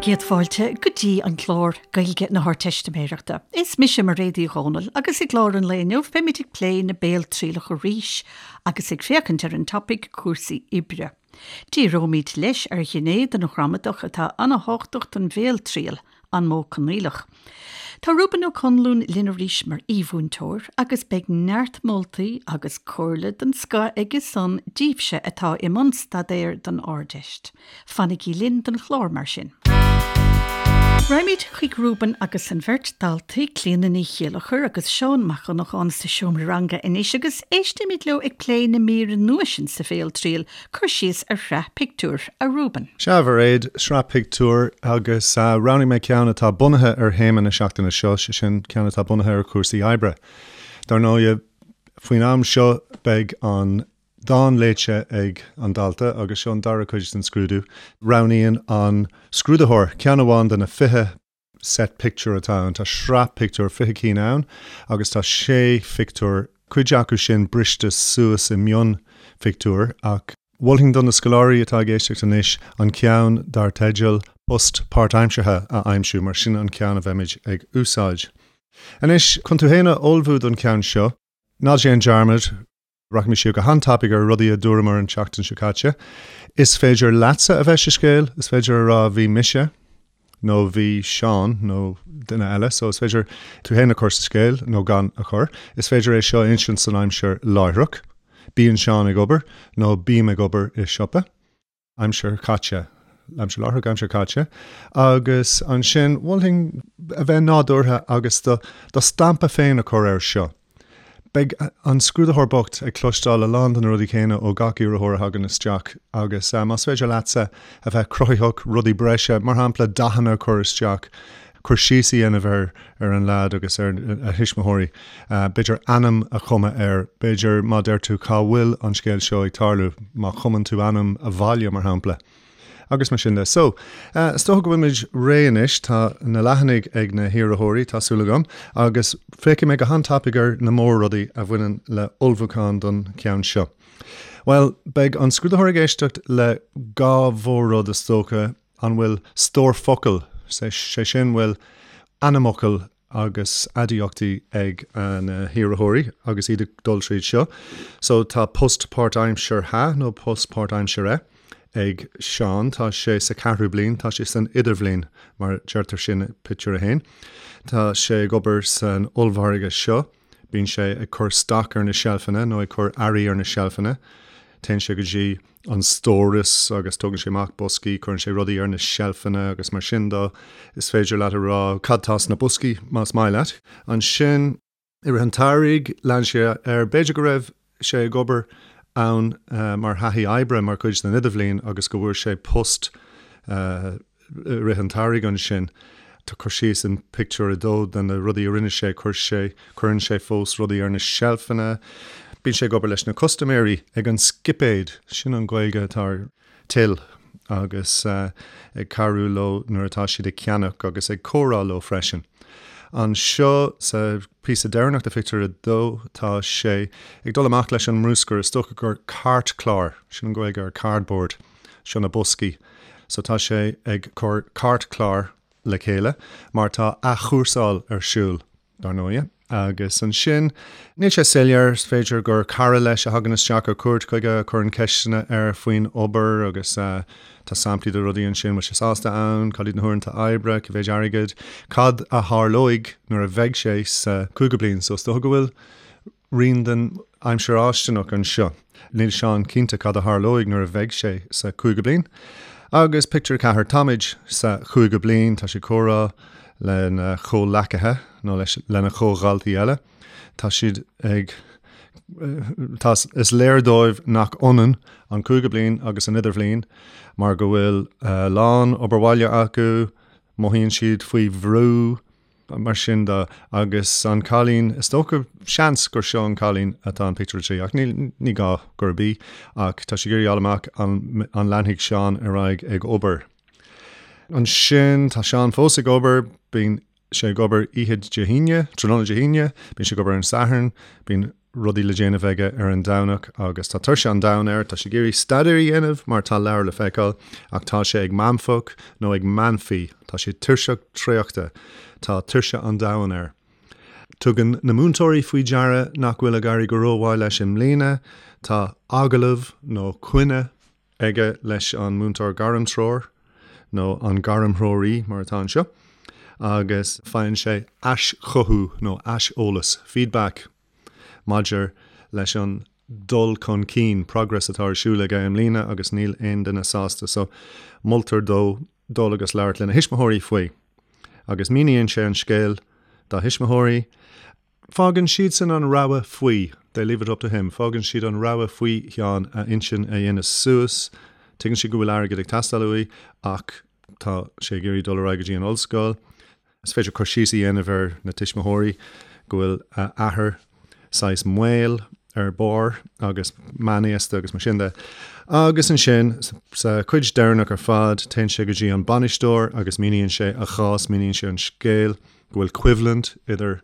Bhur gcéad fáilte go dtí an clár Gaeilge na hArdteistiméireachta. Is mise Mairéad Uí Dhomhnaill agus i gclár an lae inniu beimid ag plé na béaltrialach arís agus ag féachaint ar an topaic cúrsaí oibre. Díreoimid leis ar ghné den ghramadach atá an-thábhachtach don bhéaltriail, an modh coinníollach. Tá Reuben Ó Conluain linn arís mar aoi-mhúinteoir agus beidh neart moltaí agus comhairle den scoth aige san díbhse atá i mbun staidéir don Ardeist. Fanaigí linn don chlár mar sin. Raghaimid chuig Reuben agus an bheirt daltaí, Clíona Ní Chéilleachair agus Seán Mac Dhonnacháin sa seomra ranga anois agus éistimid leo ag plé na míre nua sin sa bhéaltriail, cur síos ar shraith pictiúr, a Reuben. Sea, a Mhairéad, sraith pictiúr agus roghnaigh mé ceann atá bunaithe ar théama na seachtaine seo, sé sin ceann atá bunaithe ar chúrsaí oibre. Dar ndóigh, faoin am seo beidh an dán léite ag an dalta agus seo an dara cuid den scrúdú. Roghnaíonn an scrúdaitheoir ceann amháin de na 20 set pictiúr atá ann. Tá sraith pictiúr, 20 cinn ann agus tá sé phictiúr, cuid acu sin briste suas i mionphictiúir ach mholfainn do na scoláirí atá ag éisteacht anois an ceann dar teideal 'Post Páirtaimseartha' a aimsiú mar sin an ceann a bheimid ag úsáid. Anois, chun tú féin a ullmhú don cheann seo, ná déan dearmad, Rachaimid siar go han-tapaidh ar rudaí a dúramar an tseachtain seo caite. Is féidir leatsa a bheith sa scéal, is féidir a rá bhí mise nó bhí Seán nó duine eile, so is féidir tú féin a chur sa scéal nó gan a chur. Is féidir é seo a insint san aimsir láithreach, bíonn Seán ag obair nó bím ag obair i siopa. aimsir chaite, aimsir láithreach, aimsir chaite, agus ansin mholfainn a bheith nádúrtha agus do do stampa féin a chur air seo. Beidh an scrúdaitheoir bocht ag cloisteáil a lán de na rudaí céanna ó gach iarrthóir a thagann isteach agus más féidir leatsa a bheith cruthaitheach, rudaí breise, mar shampla dathanna a chur isteach, cur síos a dhéanamh ar ar an leaid agus ar a thuismitheoirí, b'fhéidir ainm a chumadh air, b'fhéidir má deir tú cá bhfuil an scéal seo ag tarlú, má chumann tú ainm a bhaile, mar shampla. Agus mar sin de. So, is dócha go bhfuilimid réidh anois, tá na leathanaigh ag na hiarrthóirí, tá súil agam, agus féachfaidh mé go han-tapaidh ar na mór-rudaí a bhaineann le ullmhúchán don cheann seo. Bhuel, beidh an scrúdaitheoir ag éisteacht le dhá mhór-rud is dócha, An bhfuil stór focal, sé sin bhfuil ainmfhocail agus aidiachtaí ag na hiarrthóirí agus iad ag dul tríd seo. So tá post páirtaimseartha nó post páirtaimsire ag Seán, tá sé sa ceathrú bliain, tá sé san idirbhliain mar deirtear sin i pictiúr a haon. Tá sé ag obair san ollmhargadh seo. Bíonn sé ag cur stoc ar na seilfeanna nó ag cur earraí ar na seilfeanna. Téann sé go dtí an stóras agus tógann sé amach boscaí, cuireann sé rudaí ar na seilfeanna agus mar sin de. Is féidir leat a rá cad tá sna boscaí más maith leat. Ansin, i rith an tsamhraidh, lean sé air, b'fhéidir go raibh sé ag obair ann mar thaithí oibre mar chuid den idirbhliain agus go bhfuair sé post i rith an tsamhraidh ansin. Tá cur síos in pictiúr a dó de na rudaí a rinne sé, chuir sé, cuireann sé fós rudaí ar na seilfeanna, bíonn sé ag obair leis na custaiméirí ag an scipéad, sin an Ghaeilge atá ar till, agus ag cabhrú leo nuair atá siad ag ceannach agus ag comhrá leo freisin. Anseo sa phíosa deireanach de phictiúr a dó tá sé ag dul amach leis an mbruscar, is dócha gur cairtchlár, sin an Ghaeilge ar cardboard, seo na boscaí. So tá sé ag cur cairtchlár le chéile mar tá athchúrsáil ar siúl, dar ndóighe. Agus ansin, níl sé soiléir, is féidir gur cara leis a thagann isteach ar cuairt chuige, a chuireann ceisteanna air faoin obair agus tá samplaí de rudaí ansin, bhfuil sé sásta ann, cad iad na huaireanta oibre, cé mhéid airgid, cad a tharlóidh nuair a bheidh sé sa chúigiú bliain. So is dócha go bhfuil rian den aimsir fháistineach anseo. Níl Seán cinnte cad a tharlóidh nuair a bheidh sé sa chúigiú bliain. Agus pictiúr 4, táimid sa chúigiú bliain, tá sé ag comhrá lena chomhleacaithe nó leis lena chomhdhaltaí eile. Tá siad ag tá is léir dóibh nach ionann an cúigiú bliain agus an idirbhliain mar go bhfuil a lán obair bhaile acu, mothaíonn siad faoi bhrú, mar sin de. Agus an cailín, is dócha, seans gur seo an cailín atá in pictiúr a 3, ach níl, ní gá gurb í, ach tá sí ag iarraidh a fháil amach an, an leanfaidh Seán ar aghaidh ag obair. Ansin, tá Seán fós ag obair, bíonn sé ag obair oíche Dé hAoine, tráthnóna Dé hAoine, bíonn sé ag obair ar an Satharn, bíonn. rudaí le déanamh aige ar an Domhnach agus tá tuirse an domhain air, tá sé ag iarraidh staidéar a dhéanamh mar tá leabhar le feiceáil ach tá sé ag meanfach nó ag meanfaí, tá sé tuirseach traochta, tá tuirse an domhain air. Tugann na múinteoirí faoi deara nach bhfuil ag éirí go rómhaith leis i mbliana, tá agallamh nó coinne aige leis an múinteoir gairmthreoir, nó an gairmthreoraí mar atá anseo, agus faigheann sé aischothú nó aiseolas, feedback, maidir leis an dul chun cinn, progress, atá ar siúl aige i mbliana agus níl aon duine sásta so moltar dó dul agus labhairt lena thuismitheoirí faoi. Agus míníonn sé an scéal dá thuismitheoirí. Fágann siadsan an rogha faoi, they leave it up to him, fágann siad an rogha faoi Sheán a intinn a dhéanamh suas, tuigeann siad go bhfuil airgead ag teastáil uaidh ach tá sé ag iarraidh dul ar aghaidh go dtí an ollscoil. Is féidir cur síos a dhéanamh ar na tuismitheoirí, go bhfuil a athair saghas maol ar barr agus meánaosta agus mar sin de. Agus ansin, sa chuid deireanach ar fad, téann sé go dtí an bainisteoir agus míníonn sé a chás, míníonn sé an scéal, go bhfuil coimhlint idir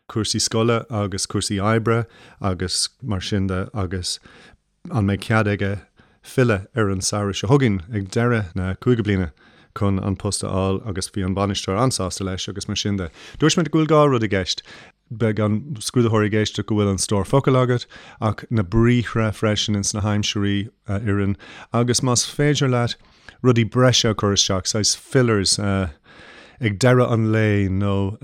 cúrsaí scoile agus cúrsaí oibre agus mar sin de agus an mbeidh cead aige filleadh ar an samhradh seo chugainn ag deireadh na cúigiú bliana chun an post a fháil agus bhí an bainisteoir an-sásta leis agus mar sin de. Dúirt mé go bhfuil dhá rud i gceist. Beidh an scrúdaitheoir ag éisteacht go bhfuil an stór focal agat ach na briathra freisin ins na haimsirí a oireann agus más féidir leat rudaí breise a chur isteach, saghas fillers, ag deireadh an lae nó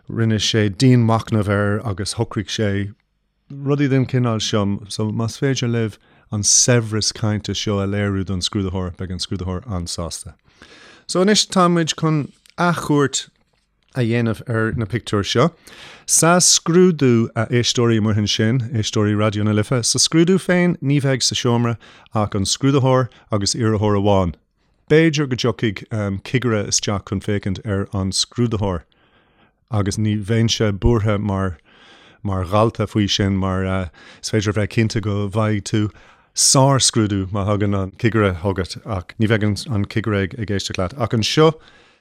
rinne sé dianmhachnamh air agus shocraigh sé rudaí den chineál seo. So más féidir libh an saibhreas cainte seo a léiriú don scrúdaitheoir, beidh an scrúdaitheoir an-sásta. So anois tá muid chun athchuairt a dhéanamh ar na pictiúir seo. Sa scrúdú, a éisteoirí amuigh ansin, éisteoirí Raidió na Life, sa scrúdú féin ní bheidh sa seomra ach an scrúdaitheoir agus iarrthóir amháin. B'fhéidir go dtiocfaidh cigire isteach chun féachaint ar an scrúdaitheoir agus ní bheinnse buartha mar mar dhalta faoi sin mar is féidir a bheith cinnte go bhfaighidh tú sár-scrúdú má thagann an cigire chugat ach ní bheidh an cigire ag éisteacht leat. Ach anseo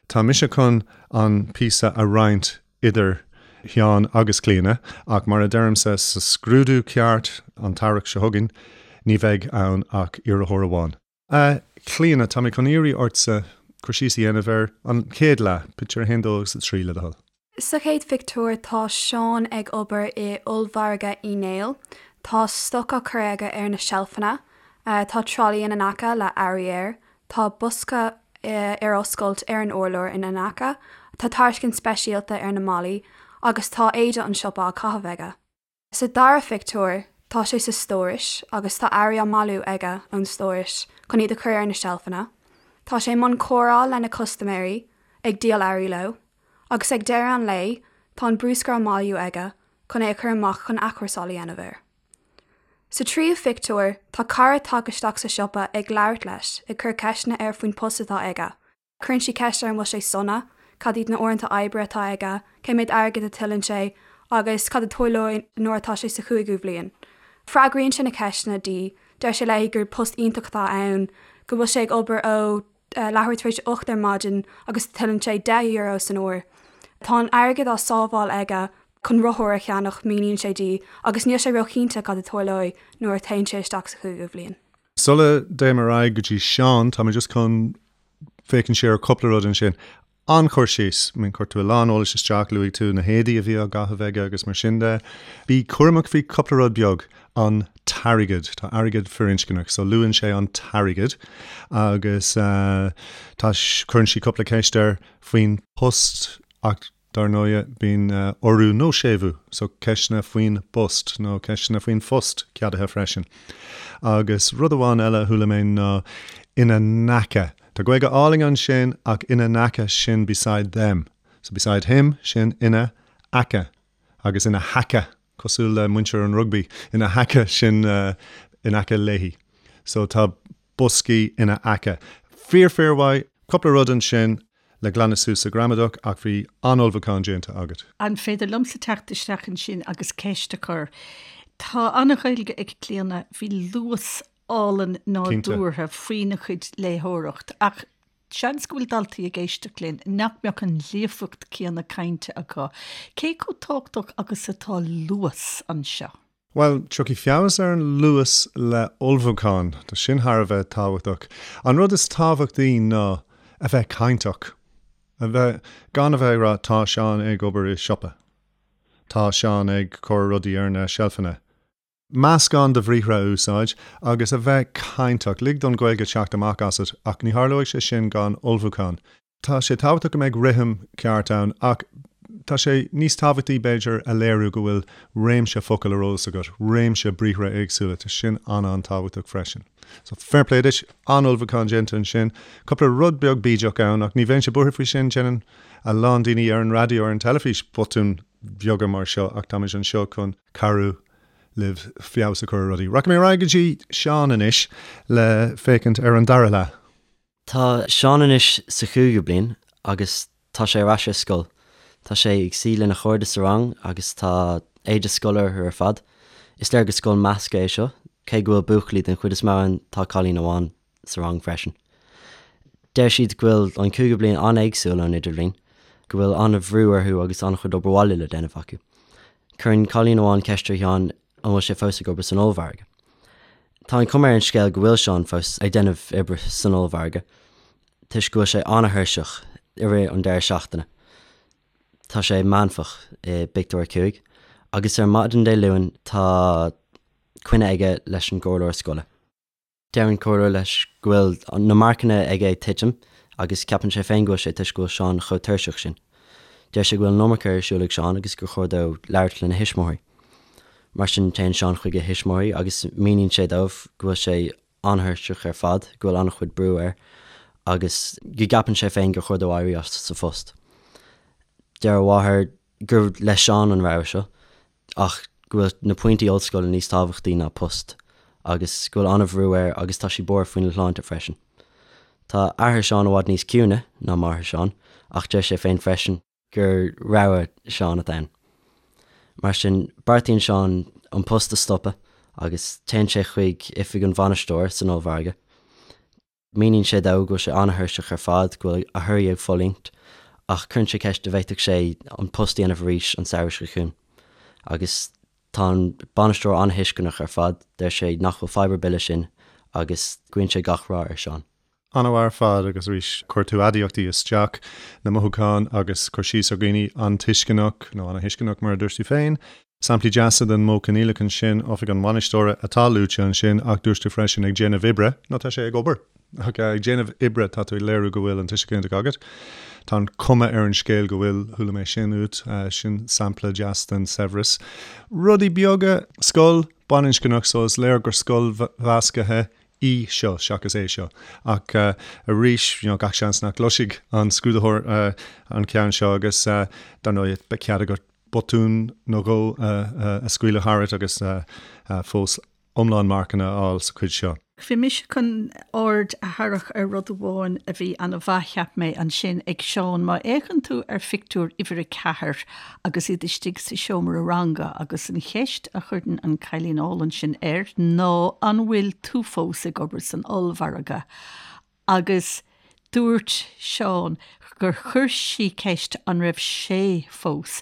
Tá mise chun an píosa a roinnt idir Sheán agus Clíona, ach mar a deirimse, sa scrúdú ceart an t-earrach seo chugainn, ní bheidh ann ach iarrthóir amháin. A Chlíona, tá mé chun iarraidh ortsa cur síos a dhéanamh ar an chéad leath, pictiúr 1, 2 agus 3, le do thoil. Sa chéad phictiúr tá Seán ag obair i ollmhargadh Uí Néill. Tá stoc á chur aige ar na seilfeanna. Tá tralaí ina n-aice le earraí air. Tá bosca ar oscailt ar an urlár ina n-aice. Tá tairiscint speisialta ar na malaí agus tá éide an siopa á caitheamh aige. Sa dara phictiúr, tá sé sa stórais agus tá earraí á mbailiú aige ón stórais chun iad a chur ar na seilfeanna. Tá sé i mbun comhrá lena chustaiméirí, ag díol earraí leo. Agus ag deireadh an lae, tá an bruscar á mbailiú aige chun é a chur amach chun athchúrsáil a dhéanamh air. Sa tríú phictiúr, tá cara tagtha isteach sa siopa ag labhairt leis, ag cur ceisteanna air faoin post atá aige. Cuireann sí ceist air an bhfuil sé sona, cad iad na uaireanta oibre atá aige, cé mhéad airgid a tuilleann sé agus cad a tarlóidh nuair atá sé sa chúigiú bhliain. Freagraíonn sé na ceisteanna di, deir sé léi gur post iontach atá ann, go bhfuil sé ag obair ó leathuair tar éis a 8 ar maidin agus tuilleann sé €10 san uair. Tá an airgead á sábháil aige chun rothar a cheannach, míníonn sé di, agus níl sé róchinnte cad a tarlóidh nuair a théann sé isteach sa chúigiú bhliain. Sula dtéim ar aghaidh go dtí Seán, tá mé just chun féachaint siar ar cúpla rud ansin. An-chur síos. I mean, chuir tú a lán eolais isteach, luaigh tú na héadaí a bhí á gcaitheamh aige agus mar sin de. Bí cúramach faoi cúpla rud beag. An t-airgead. Tá airgead firinscneach, so luann sé an t-airgead agus tá, cuireann sí cúpla ceist air faoin post ach Dar ndóighe, bíonn urú nó séimhiú, so ceisteanna faoin bpost nó ceisteanna faoin phost ceadaithe freisin. Agus rud amháin eile a chuala mé ná ina n-aice. Tá Gaeilge álainn ansin ach ina n-aice sin beside them. So beside him sin ina aice agus ina haice cosúil le muintir an rugbaí ina haice sin in aice léi. So tá boscaí ina aice. Fíor fíor mhaith. Cúpla rud ansin le glanadh suas sa ghramadach ach bhí an-ullmhúchán déanta agat. An féidir liomsa teacht isteach ansin agus ceist a chur? Tá an-Ghaeilge ag Clíona, bhí luas álainn nádúrtha faoina cuid léitheoireacht ach. Seans go bhfuil daltaí ag éisteacht linn nach mbeadh an líofacht céanna cainte acu. Cé chomh tábhachtach agus atá luas anseo? Bhuel, tiocfaidh feabhas ar an luas le ullmhúchán. Tá sin thar a bheith tábhachtach. An rud is tábhachtaí ná a bheith cainteach. A bheith, gan a bheith ag rá 'tá Seán ag obair i siopa'. 'Tá Seán ag cur rudaí ar na seilfeanna'. Meascán de bhriathra a úsáid agus a bheith cainteach. Lig don Ghaeilge teacht amach asat ach ní tharlóidh sé sin gan ullmhúchán. Tá sé tábhachtach go mbeidh rithim ceart ann ach tá sé níos tábhachtaí, b'fhéidir, a léiriú go bhfuil réimse focal ar eolas agat, réimse briathra éagsúla, tá sin an-an-tábhachtach freisin. So, fair play duit, an-ullmhúchán déanta ansin. Cúpla rud beag bídeach ann ach ní bheinnse buartha faoi sin, déanann a lán daoine ar an raidió, ar an teilifís botúin bheaga mar seo ach táimid anseo chun cabhrú libh feabhas a chur ar rudaí. Rachaidh mé ar aghaidh go dtí Seán anois le féachaint ar an dara leath. Tá Seán anois sa chúigiú bliain agus tá sé ar ais ar scoil. Tá sé ag suí lena chairde sa rang agus tá éide scoile orthu ar fad. Is léir gur scoil measctha é seo, cé go bhfuil buachaillí den chuid is mó ann tá cailín amháin sa rang freisin. Deir siad go bhfuil an cúigiú bliain an-éagsúil ón idirbhliain, go bhfuil an-bhrú orthu agus an-chuid obair bhaile le déanamh acu. Cuireann cailín amháin ceist ar Sheán an bhfuil sé fós ag obair san ollmhargadh. Tá an chuma ar an scéal go bhfuil Seán fós ag déanamh oibre san ollmhargadh toisc go bhfuil sé an-thuirseach i rith an deireadh seachtaine. Tá sé meánfach i bpictiúr 5 agus ar maidin Dé Luain tá coinne aige leis an gcomhairleoir scoile. Deir an comhairleoir leis go bhfuil na marcanna aige ag titim agus ceapann sé féin go bhfuil sé toisc go bhfuil Seán chomh tuirseach sin. Deir sé go bhfuil an iomarca ar siúl ag Seán agus gur chóir dó labhairt lena thuismitheoirí. Mar sin, téann Seán chuig a thuismitheoirí agus míníonn sé dóibh go bhfuil sé an-thuirseach ar fad, go bhfuil an-chuid brú air agus go gceapann sé féin gur chóir dó éirí as sa phost. Deir a mháthair gur le Seán an rogha seo ach go bhfuil na pointí ollscoile níos tábhachtaí ná post agus go bhfuil an-bhrú air agus tá sí buartha faoina shláinte freisin. Tá athair Seán i bhfad níos ciúine ná máthair Seán ach deir sé féin freisin gur rogha Seán atá ann. Mar sin, beartaíonn Seán an post a stopadh agus téann sé chuig oifig an bhainisteora san ollmhargadh. Míníonn sé dó go bhfuil sé an-thuirseach ar fad, go bhfuil a thorthaí ag fulaingt, ach cuireann sé ceist an bhféadfadh sé an post a dhéanamh arís an samhradh seo chugainn. Agus tá an bainisteoir an-tuisceanach ar fad, deir sé nach bhfuil fadhb ar bith leis sin agus guíonn sé gach rath ar Seán. An-mhaith ar fad agus arís chuir tú aidiachtaí isteach, na mothúcháin agus cur síos ar dhaoine an-tuisceanach, nó ana-thuisceanach mar a dúirt tú féin. Samplaí deasa den modh coinníollach ansin, oifig an bhainisteora atá luaite ansin ach dúirt tú freisin ag déanamh oibre, nó tá sé ag obair, ach ag déanamh oibre tá tú ag léiriú go bhfuil an tuiseal ginideach agat. Tá an chuma ar an scéal go bhfuil, chuala mé sin uait, sin sampla deas den saibhreas. Rudaí beaga, scoil baininscneach so is léir gur scoil mheasctha í seo seachas é seo. Ach arís, you know, gach seans nach gcloisfidh an scrúdaitheoir an ceann seo agus dar ndóigh beidh cead agat botún nó dhó a scaoileadh tharat agus fós iomlán marcanna a fháil sa chuid seo. Bhí mise chun aird a tharrac ar rud amháin a bhí an-mhaith, cheap mé, ansin ag Seán. Má fhéachann tú ar phictiúr uimhir a ceathair agus iad istigh sa seomra ranga agus an cheist a chuireann an cailín álainn sin air ná an bhfuil tú fós ag obair san ollmhargadh agus dúirt Seán gur chuir sí ceist an raibh sé fós.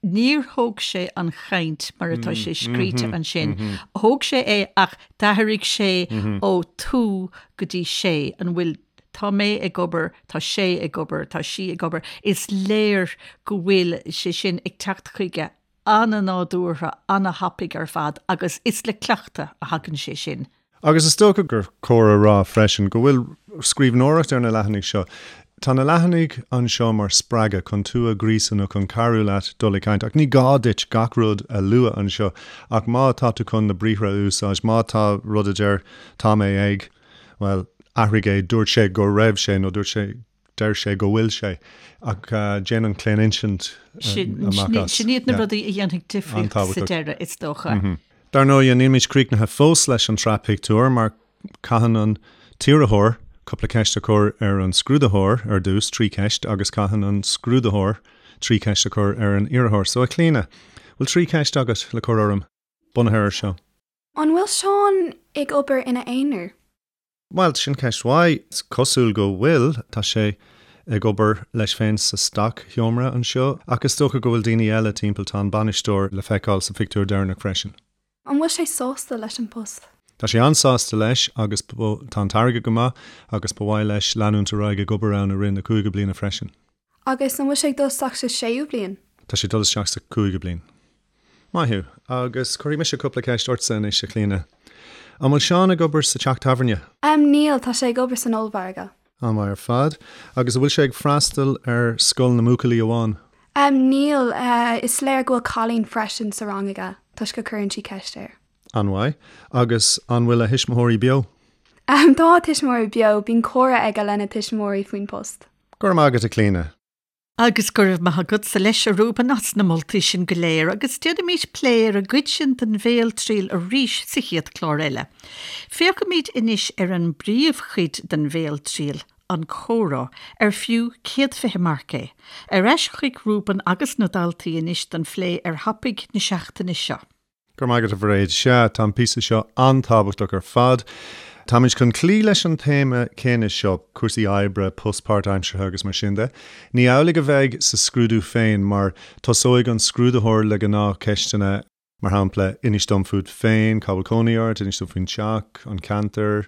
Níor thóg sé an chaint mar atá sé scríte ansin. Thóg sé é ach d'athraigh sé ó tú go dtí sé. An bhfuil Tá mé ag obair, tá sé ag obair, tá sí ag obair. Is léir go bhfuil sé sin ag teacht chuige an-nádúrtha, an-thapaidh ar fad agus is le cleachtadh a thagann sé sin. Agus is dócha gur cóir a rá freisin go bhfuil scríbhneoireacht ar na leathanaigh seo. Tá na leathanaigh anseo mar spreagadh chun tú a ghríosadh nó chun cabhrú leat dul ag caint ach ní gá duit gach rud a lua anseo ach má tá tú chun na briathra a úsáid, má tá rud a deir tá mé ag, bhuel, athraigh é, dúirt sé go raibh sé nó dúirt sé, deir sé go bhfuil sé, ach déan an claoninsint amach as. Sin iad na rudaí a dhéanfaidh difríocht sa deireadh, is dócha. Dar ndóigh, nílimid críochnaithe fós leis an tsraith pictiúr mar caitheann an t-iarrthóir cúpla ceist a chur ar an scrúdaitheoir ar dtús, 3 cheist, agus caitheann an scrúdaitheoir 3 cheist a chur ar an iarrthóir. So, a Chlíona, bhfuil 3 cheist agat le cur orm, bunaithe air seo? An bhfuil Seán ag obair ina aonar? Bhuel, sin ceist mhaith. Is cosúil go bhfuil. Tá sé ag obair leis féin sa stoc-sheomra anseo, ach is dócha go bhfuil daoine eile timpeall. Tá an bainisteoir le feiceáil sa phictiúr deireanach freisin. An bhfuil sé sásta leis an post? Tá sé an-sásta leis agus tá an t-airgead go maith agus ba mhaith leis leanúint ar aghaidh ag obair ann i rith na cúigiú bliana freisin. Agus an bhfuil sé ag dul isteach sa séú bliain? Tá sé ag dul isteach sa cúigiú bliain. Maith thú. Agus cuirfidh mise cúpla ceist ortsa anois, a Chlíona. An bhfuil Seán ag obair sa teach tábhairne? Em, níl, tá sé ag obair san ollmhargadh. An-mhaith ar fad. Agus an bhfuil sé ag freastal ar scoil na mbuachaillí amháin? Em, níl, is léir go bhfuil cailín freisin sa rang aige, toisc go cuireann sí ceist air. An-mhaith. Agus an bhfuil a thuismitheoirí beo? Em, tá a tuismitheoirí beo, bíonn comhrá aige lena tuismitheoirí faoin post. Go raibh maith agat, a Chlíona. Agus go raibh maith agatsa leis, a Reuben, as na moltaí sin go léir, agus déanfaimid plé ar an gcuid sin den bhéaltriail arís sa chéad chlár eile. Féachfaimid anois ar an bpríomhchuid den bhéaltriail, an comhrá, ar fiú 120 marc é. Ar ais chuig Reuben agus na daltaí anois don phlé ar thopaic na seachtaine seo. Go raibh maith agat, a Mhairéad. Sea, tá an píosa seo an-tábhachtach ar fad. Táimid chun cloí leis an téama céanna seo, cúrsaí oibre, post páirtaimseartha agus mar sin de. Ní amhlaidh a bheidh sa scrúdú féin mar tosóidh an scrúdaitheoir le gnáthcheisteanna, mar shampla, inis dom fút féin, cá bhfuil cónaí ort, inis dom faoin teach, an ceantar,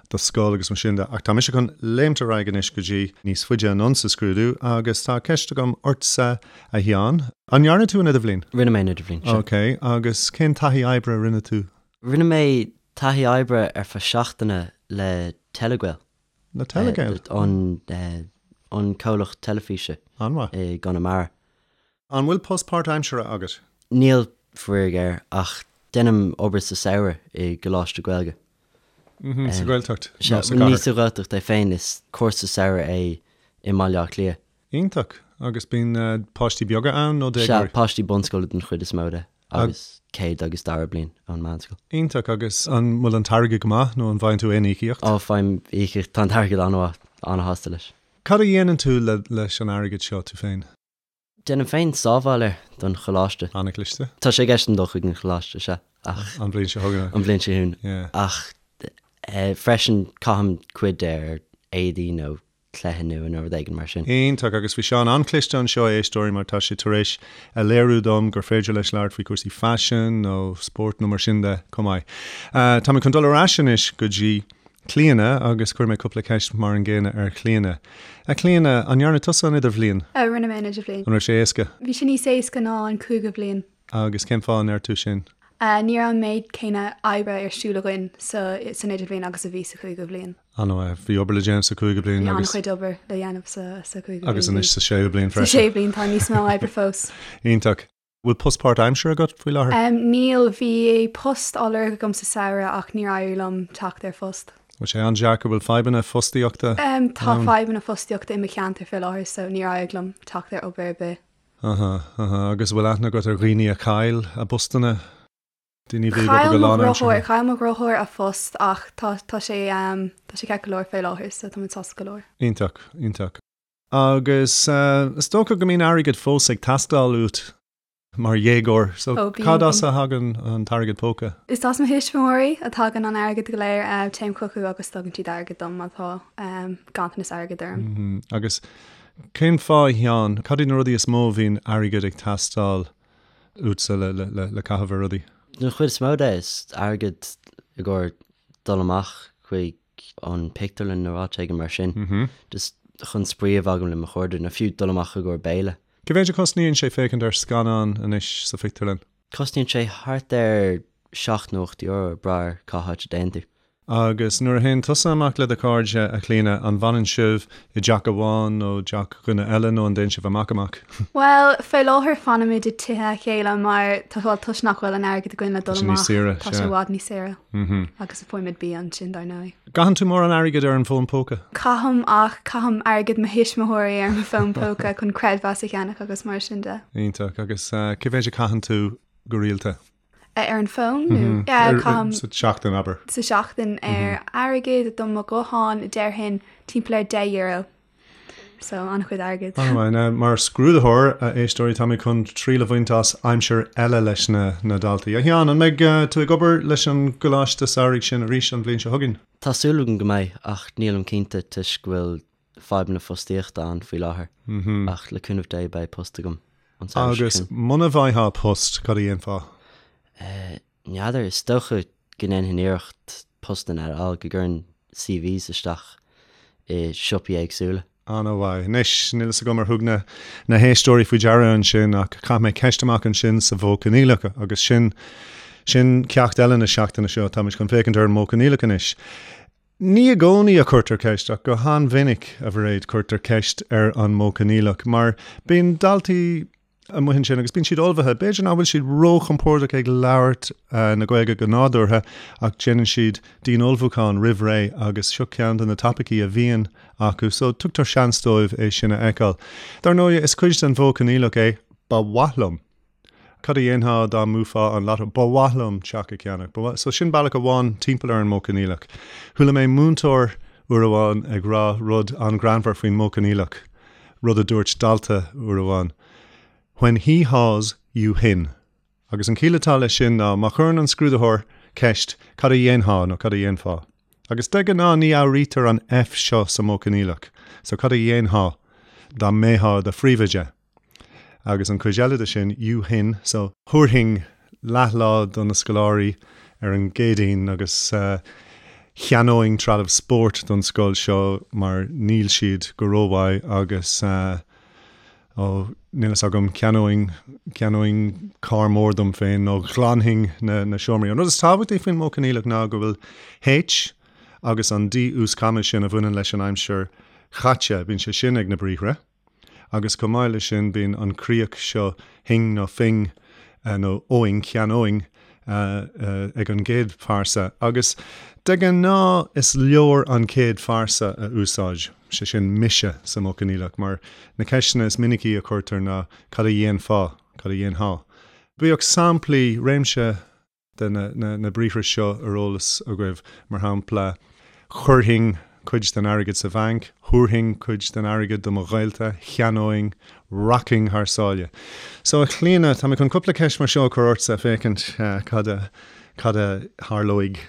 do scoil agus mar sin de. Ach tá mise chun léimt ar aghaidh anois go dtí níos faide anonn sa scrúdú agus tá ceist agam ortsa, a Sheáin. An ndearna tú an idirbhliain? Rinne mé an idirbhliain, sea. Ok, agus cén taithí oibre a rinne tú? Rinne mé taithí oibre ar feadh seachtaine le Telegael. Le Telegael? An, an comhlacht teilifíse. An-mhaith. I gConamara. An bhfuil post páirtaimseartha agat? Níl, faraor géar, ach déanaim obair sa samhradh i gcoláiste Gaeilge. Sa Ghaeltacht nó sa gcathair? Ní sa Ghaeltacht é féin, is cúrsa samhraidh é i mBaile Átha Cliath. Iontach! Agus bíonn páistí beaga ann nó déagóirí? Sea, páistí bunscoile den chuid is mó de, agus céad agus dara bliain ón meánscoil. Iontach! Agus an bhfuil an t-airgead go maith nó an bhfaigheann tú aon íocaíocht? Ó, faighim íocaíocht, tá an t-airgead an-mhaith, an-shásta leis. Cad a dhéanann tú leis an airgead seo, tú féin? Déanaim féin sábháil air don choláiste. An-chliste. Tá sé i gceist agam dul chuig an choláiste, sea, ach. An bhliain seo chugainn. An bhliain seo chugainn. Yeah. Ach freisin caithim cuid de ar éadaí nó cluiche nua nó rud éigin mar sin. Iontach, agus bhí Seán an-chliste anseo, a éisteoirí, mar tá sé tar éis a léiriú dom gur féidir leis labhairt faoi chúrsaí faisin nó spóirt nó mar sin de chomh maith. Tá mé chun dul ar ais anois go dtí Clíona agus cuirfidh mé cúpla ceist mar an gcéanna ar Chlíona. A Chlíona, an ndearna tusa an idirbhliain? Rinne mé an idirbhliain. An raibh sé éasca? Bhí sé níos éasca ná an cúigiú bliain. Agus cén fáth a ndeir tú sin? Ní raibh an méid céanna oibre ar siúl againn sa san idirbhliain agus a bhí sa chúigiú bliain. An-mhaith. Bhí obair le déanamh sa cúigiú bliain agus. Bhí an-chuid obair le déanamh sa sa cúigiú bliain. Agus anois sa séú bliain freisin. Sa séú bliain tá níos mó oibre fós. Iontach. Bhfuil post páirtaimseartha agat faoi láthair? Níl, bhí post á lorg agam sa samhradh ach níor éirigh liom teacht ar phost. Bhfuil sé an-deacair? Bhfuil fadhbanna fostaíochta ann? Tá fadhbanna fostaíochta i mo cheantar fé láthair so níor éirigh liom teacht ar obair ar bith. Aha, aha. Agus bhfuil aithne agat ar dhaoine a chaill a bpostanna? Daoine a bhí ag obair go lánaimseartha? Chaill mo dheartháir a phost ach tá tá sé tá sé ceart go leor fé láthair so tá muid sásta go leor. Iontach, iontach. Agus is dócha go mbíonn airgead fós ag teastáil uait mar dhéagóir, so Ó, bíonn, cad as bíonn. a thagann an t-airgead póca? Is as mo thuismitheoirí a thagann an airgead go léir. Téim chucu agus tugann siad airgead dom má tá ganntanas airgid orm. Agus cén fáth, a Sheáin, cad iad na rudaí is mó a bhíonn airgead ag teastáil uatsa le caitheamh ar rudaí? Den chuid is mó de, is airgead i gcomhair dul amach chuig an pictiúrlann nó áit éigin mar sin, just chun spraoi a bheith agam le mo chairde, nó fiú dul amach i gcomhair béile. Cé mhéid a chosnaíonn sé féachaint ar scannán anois sa phictiúrlann? Cosnaíonn sé thart ar €7 nó €8 ag brath ar cá háit a dtéann tú. Agus nuair a théann tusa amach le do chairde, a Chlíona, an bhfanann sibh i dteach amháin nó teach dhuine eile nó an dtéann sibh amach amach? Bhuel, fé láthair fanaimid i dtithe a chéile mar tá, bhuel, toisc nach bhfuil an airgead againn le Tá dul sé níos amach, saoire, tá sé sea. i bhfad níos saoire. Agus faighimid bia ansin, dar ndóigh. Caitheann tú mórán airgid ar an bhfón póca? Caithim ach caithim airgead mo thuismitheoirí ar mo fón póca chun creidmheas a cheannach agus mar sin de. Iontach. Agus cé mhéid a chaitheann tú go rialta? Ar an bhfón nó? Caithim. Sa tseachtain, abair. Sa tseachtain ar airgead do mo ghuthán déarfainn timpeall ar €10. So an-chuid airgid. An-mhaith. Now, mar scrúdaitheoir, a éisteoirí, tá mé chun triail a bhaint as aimsir eile leis na na daltaí. A Sheáin, an mbeidh tú ag obair leis an gcoláiste samhraidh sin arís an bhliain seo chugainn? Tá súil agam go mbeidh, ach nílim cinnte toisc go bhfuil fadhbanna fostaíochta ann faoi láthair. Ach le cúnamh Dé beidh post agam an samhradh seo Agus chugainn. muna bhfaightheá post, cad a dhéanfá? N'fheadar, is dócha go ndéanfainn iarracht postanna a fháil, go gcuirfinn CVs isteach i siopaí éagsúla. An-mhaith. Anois, níl fhios agam ar thug na na héisteoirí faoi deara ansin ach chaith mé ceist amach ansin sa mhodh coinníollach agus sin sin ceacht eile na seachtaine seo. Táimid chun féachaint ar an modh coinníollach anois. Ní i gcónaí a chuirtear ceist ach go han-mhinic, a Mhairéad, cuirtear ceist ar an modh coinníollach mar bíonn daltaí amuigh ansin agus bíonn siad ullmhaithe. B'fhéidir nach bhfuil siad róchompordach ag labhairt na Gaeilge go nádúrtha ach déanann siad dian-ullmhúchán roimh ré agus seo ceann de na topaicí a bhíonn acu so tugtar seans dóibh é sin a fheiceáil. Dar ndóigh, is cuid den mhodh coinníollach é 'ba mhaith liom'. Cad a dhéanfá dá mbuafá an lotto? Ba mhaith liom teach a cheannach. Ba mhaith. So sin bealach amháin timpeall ar an modh coinníollach. Chuala mé múinteoir uair amháin ag rá rud an-ghreannmhar faoin modh coinníollach. rud a dúirt dalta uair amháin, When he haws, you hin. Agus an chiall atá leis sin ná má chuireann an scrúdaitheoir ceist cad a dhéanfá nó cad a dhéanfá? Agus de ghnáth ní fhuaimnítear an F seo sa modh coinníollach, so cad a dhéanfá dá mbeifeá i do phríomhoide? Agus an chuid eile de sin, you hin, so thabharfainn leathlá do na scoláirí ar an gCéadaoin agus cheannóinn trealamh spóirt don scoil seo mar níl siad go rómhaith agus ó níl fhios agam, cheannóinn, cheannóinn carr mór dom féin nó ghlanfainn na, na seomraí. An rud is tábhachtaí faoin modh coinníollach ná go bhfuil H agus an D uaschama sin a bhaineann leis an aimsir chaite, bíonn sé sin ag na briathra. Agus chomh maith leis sin bíonn an chríoch seo hing nó fing nó óing, cheannóinn ag an gcéad phearsa. Agus de ghnáth is leor an chéad phearsa a úsáid, sé sin mise sa modh coinníollach, mar na ceisteanna is minicí a chuirtear ná cad a dhéanfá, cad a dhéanfá? Bíodh samplaí, réimse de na briathra seo ar eolas agaibh, mar shampla, chuirfinn cuid den airgead sa bhanc, thabharfainn cuid den airgead do mo ghaolta, cheannóinn, rachainn thar sáile. So, a Chlíona, tá mé chun cúpla ceist mar seo a chur ortsa féachaint cad a, cad a tharlóidh.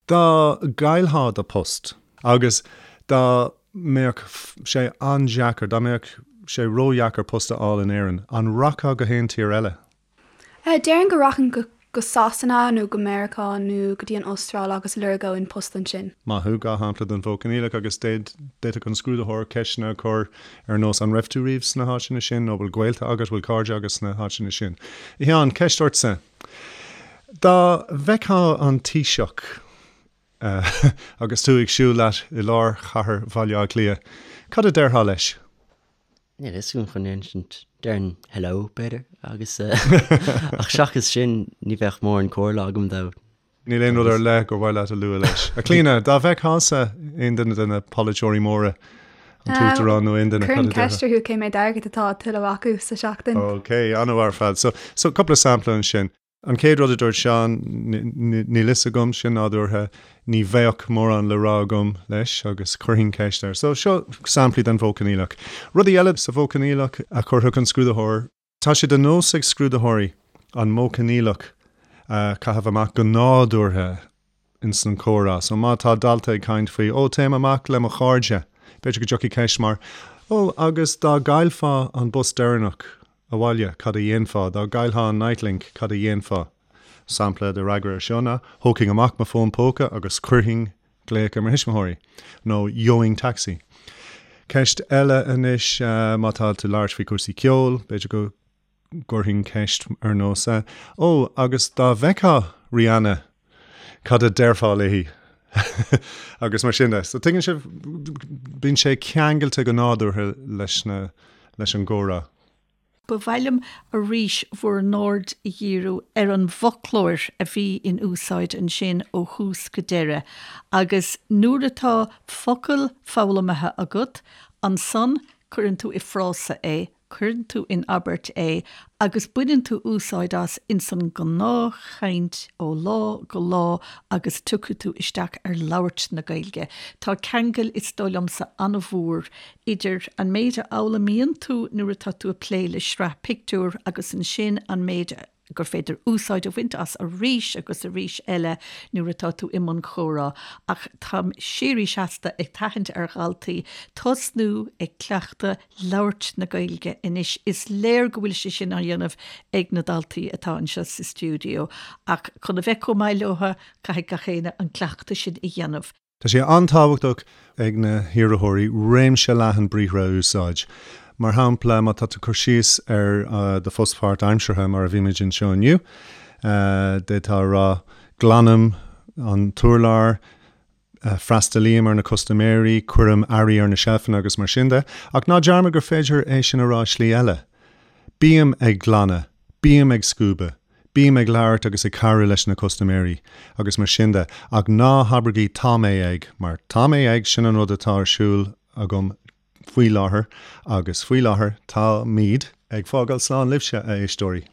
Dá gcaillfeá do post agus dá mbeadh sé an-deacair, dá mbeadh sé ródheacair post a fháil in Éirinn, an rachfá go haon tír eile? Déarfainn go rachainn go go Sasana nó go Meiriceá nó go dtí an Astráil agus lorgóinn post ansin. Maith thú, 2 shampla den mhodh coinníollach agus d'fhéadfadh an scrúdaitheoir ceisteanna a chur ar nós an raibh tú riamh sna háiteanna sin nó bhfuil gaolta agat, bhfuil cairde agat sna háiteanna sin. A Sheáin, ceist ortsa. Dá bhfeicfeá an Taoiseach agus tú ag siúl leat i lár chathair Bhaile Átha Cliath, cad a déarfá leis? Níl a fhios agam chun insint. Déarfainn hello, b'fhéidir, agus ach seachas sin ní bheadh mórán comhairle agam dó. Níl aon rud ar leith gur mhaith leat a lua leis. A Chlíona, dá bhfeicfeása aon duine de na polaiteoirí móra, an tUachtarán nó aon duine, cad a déarfá? Chuirfinn ceist orthu cé méad airgid atá á thuilleamh acu sa seachtain. Ok, an-mhaith ar fad. So, so cúpla sampla ansin. An chéad rud a dúirt Seán, níl fhios agam, sin nádúrtha, ní bheadh mórán le rá agam leis agus chuirfinn ceist air. So, seo samplaí den mhodh coinníollach. Rudaí eile sa mhodh coinníollach a chuirfeadh an scrúdaitheoir. Tá sé de nós ag scrúdaitheoirí an modh coinníollach a chaitheamh amach go nádúrtha ins an chomhrá. So má tá dalta ag caint faoi, ó, téim amach le mo chairde, b'fhéidir go dtiocfaidh ceist mar, ó, agus dá gcaillfeá an bus deireanach abhaile, cad a dhéanfá? Dá gcaillfeá an Nitelink, cad a dhéanfá? Sampla de fhreagra ar seo ná, thógfainn amach mo fón póca agus chuirfinn glaoch ar mo thuismitheoirí, nó gheobhainn taxi. Ceist eile anois, má tá tú ag labhairt faoi chúrsaí ceoil, b'fhéidir go gcuirfinn ceist ar nós, Ó, agus dá bhfeicfeá Rihanna, cad a déarfá léi? Agus mar sin de. So tuigeann sibh, bíonn sé ceangailte go nádúrtha leis na, leis an gcomhrá. Ba mhaith liom arís bhur n-aird a dhíriú ar an bhfoclóir a bhí in úsáid ansin ó thús go deireadh agus nuair atá focal foghlamtha agat, ansan cuireann tú i frása é. Cuireann tú in abairt é agus baineann tú úsáid as ins an ngnáthchaint ó lá go lá agus tiocfaidh tú isteach ar labhairt na Gaeilge. Tá ceangal, is dóigh liomsa, an-mhór idir an méid a fhoghlaimíonn tú nuair atá tú ag plé le sraith pictiúr agus ansin an méid a gur féidir úsáid a bhaint as arís agus arís eile nuair atá tú i mbun comhrá, ach táim síoraí seasta ag tathant ar dhaltaí tosnú ag cleachtadh labhairt na Gaeilge anois. Is léir go bhfuil sé sin á dhéanamh ag na daltaí atá anseo sa stiúideo, ach chun a bheith chomh maith leo, caithfidh gach éinne an cleachtadh sin a dhéanamh. Tá sé an-tábhachtach ag na hiarrthóirí réimse leathan briathra a úsáid. Mar shampla, má tá tú ag cur síos ar do phost páirtaimseartha, mar a bhímid anseo inniu, d'fhéadfá a rá, Glanaim an t-urlár, freastalaím ar na custaiméirí, cuirim earraí ar na seilfeanna agus mar sin de. Ach ná dearmad gur féidir é sin a rá i slí eile. Bím ag glanadh, bím ag scuabadh. Bím ag labhairt agus ag cabhrú leis na custaiméirí agus mar sin de, ach ná habraigí 'tá mé ag' mar 'tá mé ag' sin an rud atá ar siúl agam faoi láthair agus faoi láthair táimid ag fágáil slán libhse, a éisteoirí.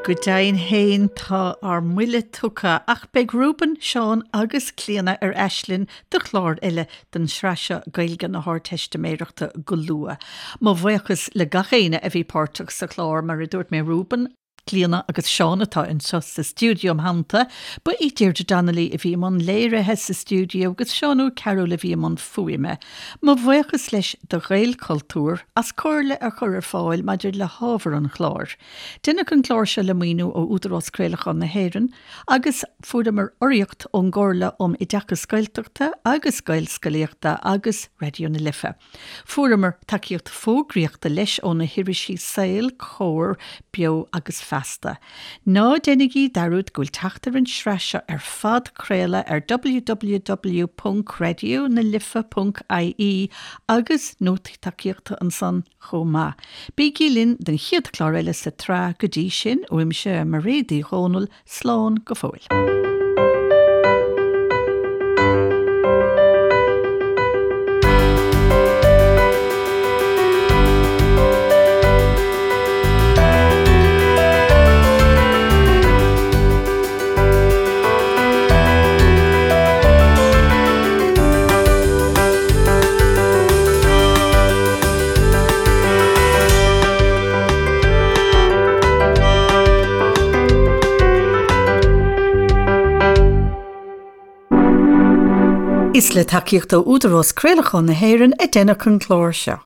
Go deimhin féin tá ár mbuille tugtha ach beidh Reuben, Seán agus Clíona ar ais linn do chlár eile den tsraith seo Gaeilge na hArdteistiméireachta go luath. Mo bhuíochas le gach éinne a bhí páirteach sa chlár, mar a dúirt mé Reuben, Clíona agus Seán atá anseo sa stiúideo im theannta. Ba í Deirdre Donnelly a bhí i mbun léirithe sa stiúideo agus Seán Ó Cearúil a bhí i mbun fuaime. Mo bhuíochas leis do Ghaelchultúr as comhairle a chur ar fáil maidir le hábhar an chláir. Deineadh an clár seo le maoiniú ó Údarás Craolacháin na hÉireann agus fuaireamar urraíocht ón gComhairle um Oideachas Gaeltachta agus Gaelscolaíochta agus Raidió na Life. Fuaireamar tacaíocht fógraíochta leis ó na hirisí Saol, Comhar, Beo agus Feasta. Ná déanaigí dearúd go bhfuil teacht ar an sraith seo ar phodchraoladh ar www.raidionalife.ie agus nótaí tacaíochta ansan chomh maith. Bígí linn don chéad chlár eile sa tsraith, go dtí sin, uaimse, Mairéad Uí Dhomhnaill, Slán go fóill. Is le tacaíocht ó Údarás Craolacháin na hÉireann a deineadh an clár seo.